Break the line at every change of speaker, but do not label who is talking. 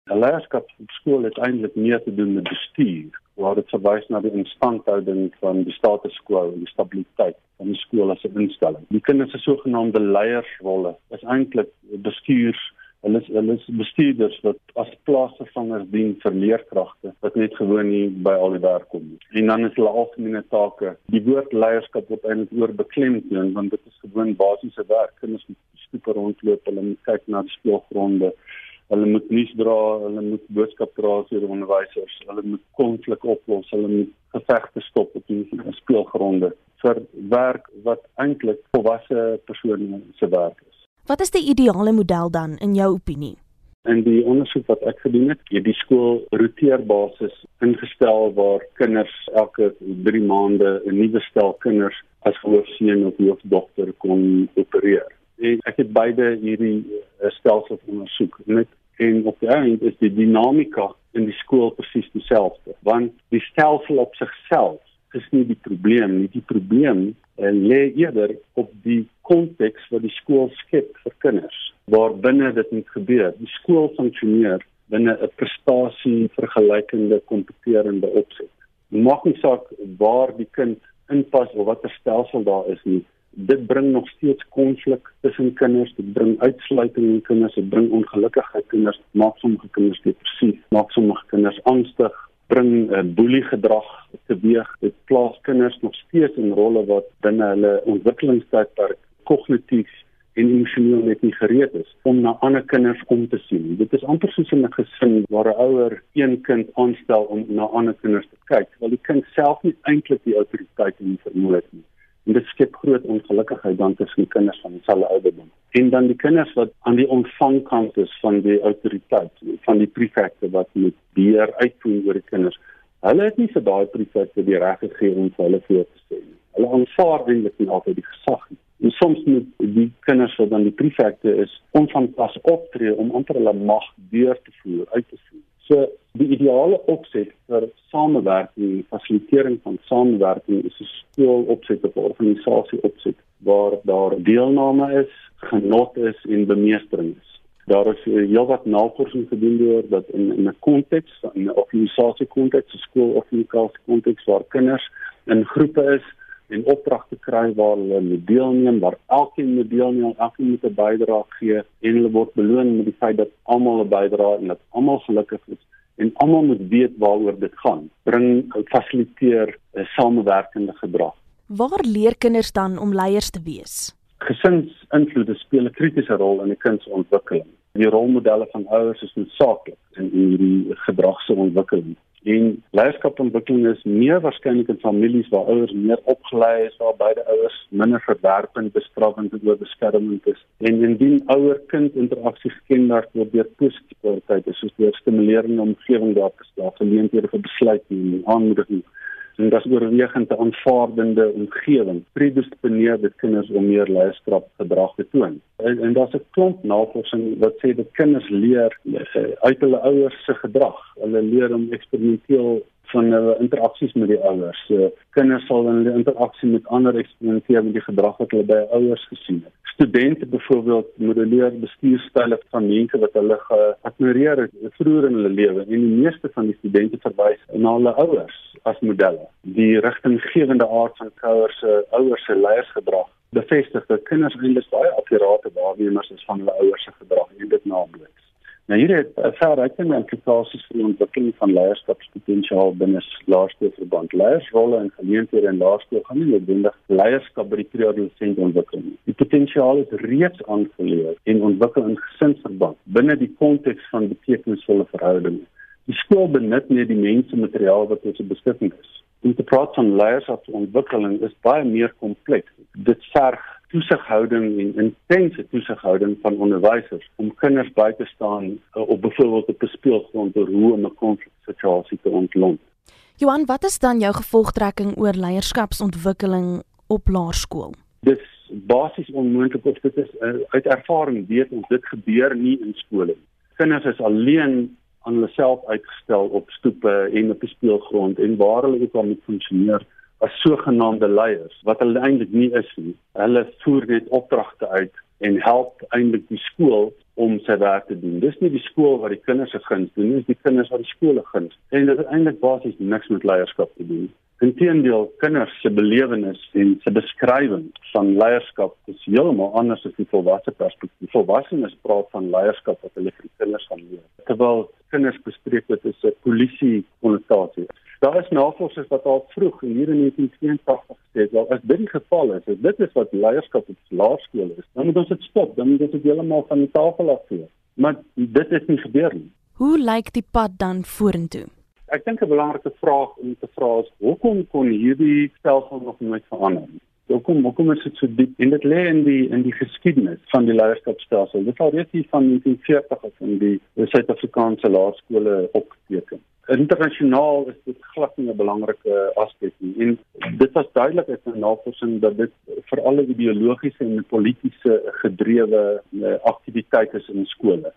'n leierskap op skool het eintlik meer te doen met bestuur, waar dit verwys na die instandhouding van die status quo en die stabiliteit van die skool as 'n instelling. Die kinders se sogenaamde leiersrolle is eintlik hulle is bestuurders wat as plaasvervangers dien vir leerkragte wat net gewoon nie by al die werk kom nie. En dan is hulle algemene take. Die woord leierskap word eintlik oorbeklemtoon, want dit is gewoon basiese werk. Kinders moet stoepe rondloop, hulle moet kyk na die speelgronde, hulle moet nuus dra, hulle moet boodskap dra vir die onderwysers, hulle moet konflik oplos, hulle moet gevegte stop op die speelgronde vir werk wat eintlik volwasse persone se werk is.
Wat is die ideale model dan, in jou opinie?
In die ondersoek wat ek gedoen het die skool roteerbasis ingestel waar kinders elke 3 maande 'n nuwe stel kinders as hoofseun of hoofdogter kon opereer. En ek het beide hierdie stelsels ondersoek. En op die eind is die dinamika in die skool presies dieselfde, want die stelsel op sigself is nie die probleem nie. Die probleem lê eerder op die konteks wat die skool skep vir kinders, waar binne dit moet gebeur. Die skool funksioneer binne 'n prestasie vergelykende kompeterende opset. Dit maak nie saak waar die kind inpas of watter stelsel daar is nie. Dit bring nog steeds konflik tussen kinders, dit bring uitsluiting in kinders, dit bring ongelukkigheid in kinders, dit maak sommige kinders depressief, maak sommige kinders angstig, bring boeliegedrag teweeg. Dit plaas kinders nog steeds in rolle wat binne hulle ontwikkelingstydperk kognitief en emosioneel net nie gereed is om na ander kinders om te sien. Dit is amper soos in 'n gesin waar 'n ouer een kind aanstel om na ander kinders te kyk, terwyl die kind self nie eintlik die autoriteit en die vermoë het nie. En dit skep groot ongelukkigheid dan tussen kinders van dieselfde ouderdom. En dan die kinders wat aan die ontvangkant is van die autoriteit, van die prefekte wat moet beheer uitvoer oor die kinders. Hulle het nie vir daai prefekte die reg gegee om vir hulle voor te sê nie. Hulle aanvaar eintlik nie altyd die gesag nie. En soms moet die kinders wat dan die prefekte is, onvanpas optree om amper hulle mag deur te voer, uit te voer. So die ideale opset vir samewerking, fasilitering van samewerking is 'n skoolopset of 'n organisasie opset waar daar deelname is, genot is en bemeestering is. Daar is heelwat navorsing gedoen deur dat in 'n konteks, in 'n organisasiekonteks, 'n skoolorganisasiekonteks waar kinders in groepe is en opdragte kry waar hulle moet deelneem, waar elkeen moet deelneem, elkeen moet 'n bydrae gee en hulle word beloon met die feit dat almal 'n bydrae en dat almal gelukkig is en almal moet weet waaroor dit gaan. Fasiliteer 'n samewerkende gedrag.
Waar leer kinders dan om leiers te wees?
Gesinsinvloede speel 'n kritiese rol in 'n kind se ontwikkeling. Die rolmodelle van ouers is noodsaaklik in hierdie gedragse ontwikkeling. En leierskapontwikkeling is meer waarskynlik in families waar ouers meer opgelei is, waar beide ouers minder verwerpend, bestraffend en oorbeskermend is. En indien ouer-kind interaksie gekenmerk word deur positiewe kwaliteite, soos deur stimulerende omgewing daar te stel, geleenthede vir besluitneming, aanmoediging, en dat is oorwegend 'n aanvaardende omgewing, predisponeer dit kinders om meer leierskapgedrag te toon. En daar's 'n klomp navorsing wat sê dat kinders leer uit hulle ouers se gedrag. Hulle leer om eksperimenteel van hulle interaksies met die ouers. Kinders sal in hulle interaksie met ander eksperimenteer met die gedrag wat hulle by ouers gesien het. Studente byvoorbeeld modelleer bestuurstyle van mense wat hulle geadmireer het vroeër in hulle lewe, en die meeste van die studente verwys na hulle ouers as modelle. Die rigtinggewende aard van ouers se leiersgedrag bevestig dat kinders eintlik baie akkurate waarnemers is van hulle ouers se gedrag en dit naboots. Nou hier het verrykende implikasies vir die ontwikkeling van leierskapspotensiaal binne laerskoolverband. Leiersrolle en geleenthede in laerskool gaan nie noodwendig leierskap by die pre-adolescent ontwikkel nie. Die potensiaal is reeds aangeleer en ontwikkel in gesinsverband binne die konteks van betekenisvolle verhoudinge. Die skool benut nie die mensemateriaal wat tot sy beskikking is. Om te praat van leierskapsontwikkeling is baie meer kompleks. Dit verg toesighouding en intense toesighouding van onderwysers om kinders by te staan op byvoorbeeld op 'n speelgrond oor hoe om 'n konfliksituasie te ontlont.
Johan, wat is dan jou gevolgtrekking oor leierskapsontwikkeling op laerskool?
Dis basies onmoontlik, of dit is uit ervaring weet ons, dit gebeur nie in skole nie. Kinders is alleen aan hulle self uitgestel op stoepe en op die speelgrond en waar hulle ook al moet funksioneer as sogenaamde leiers, wat hulle eintlik nie is nie. Hulle voer net opdragte uit en help eintlik die skool om sy werk te doen. Dis nie die skool wat die kinders se guns doen, dis die kinders wat die skole guns. En dit het eintlik basies niks met leierskap te doen. Inteendeel, kinders se belewenis en se beskrywing van leierskap is heeltemal anders as die volwasse perspektief. Volwassenes praat van leierskap wat hulle vir die kinders gaan leer. Terwyl kinders bespreek dit is 'n polisie-konnotasie. Daar is navorsers wat al vroeg in hier in 1982 gesê het, wel as dit die geval is, as dit is wat leierskap op laerskool is, dan moet ons dit stop, dan moet ons dit heeltemal van die tafel afvee. Maar dit is nie gebeur nie.
Hoe lyk die pad dan vorentoe?
Ek dink 'n belangrike vraag om te vra is, hoekom kon hierdie stelsel nog nooit verander? Hoekom is dit so diep? En dit lê in die geskiedenis van die leierskapstelsel. Dit al reeds hier van 1940 af in die Suid-Afrikaanse laerskole opgeteken. Internasionaal is dit glad nie 'n belangrike aspek nie. En dit was duidelik uit 'n navorsing dat dit vir alle ideologiese en politiese gedrewe aktiwiteite is in skole.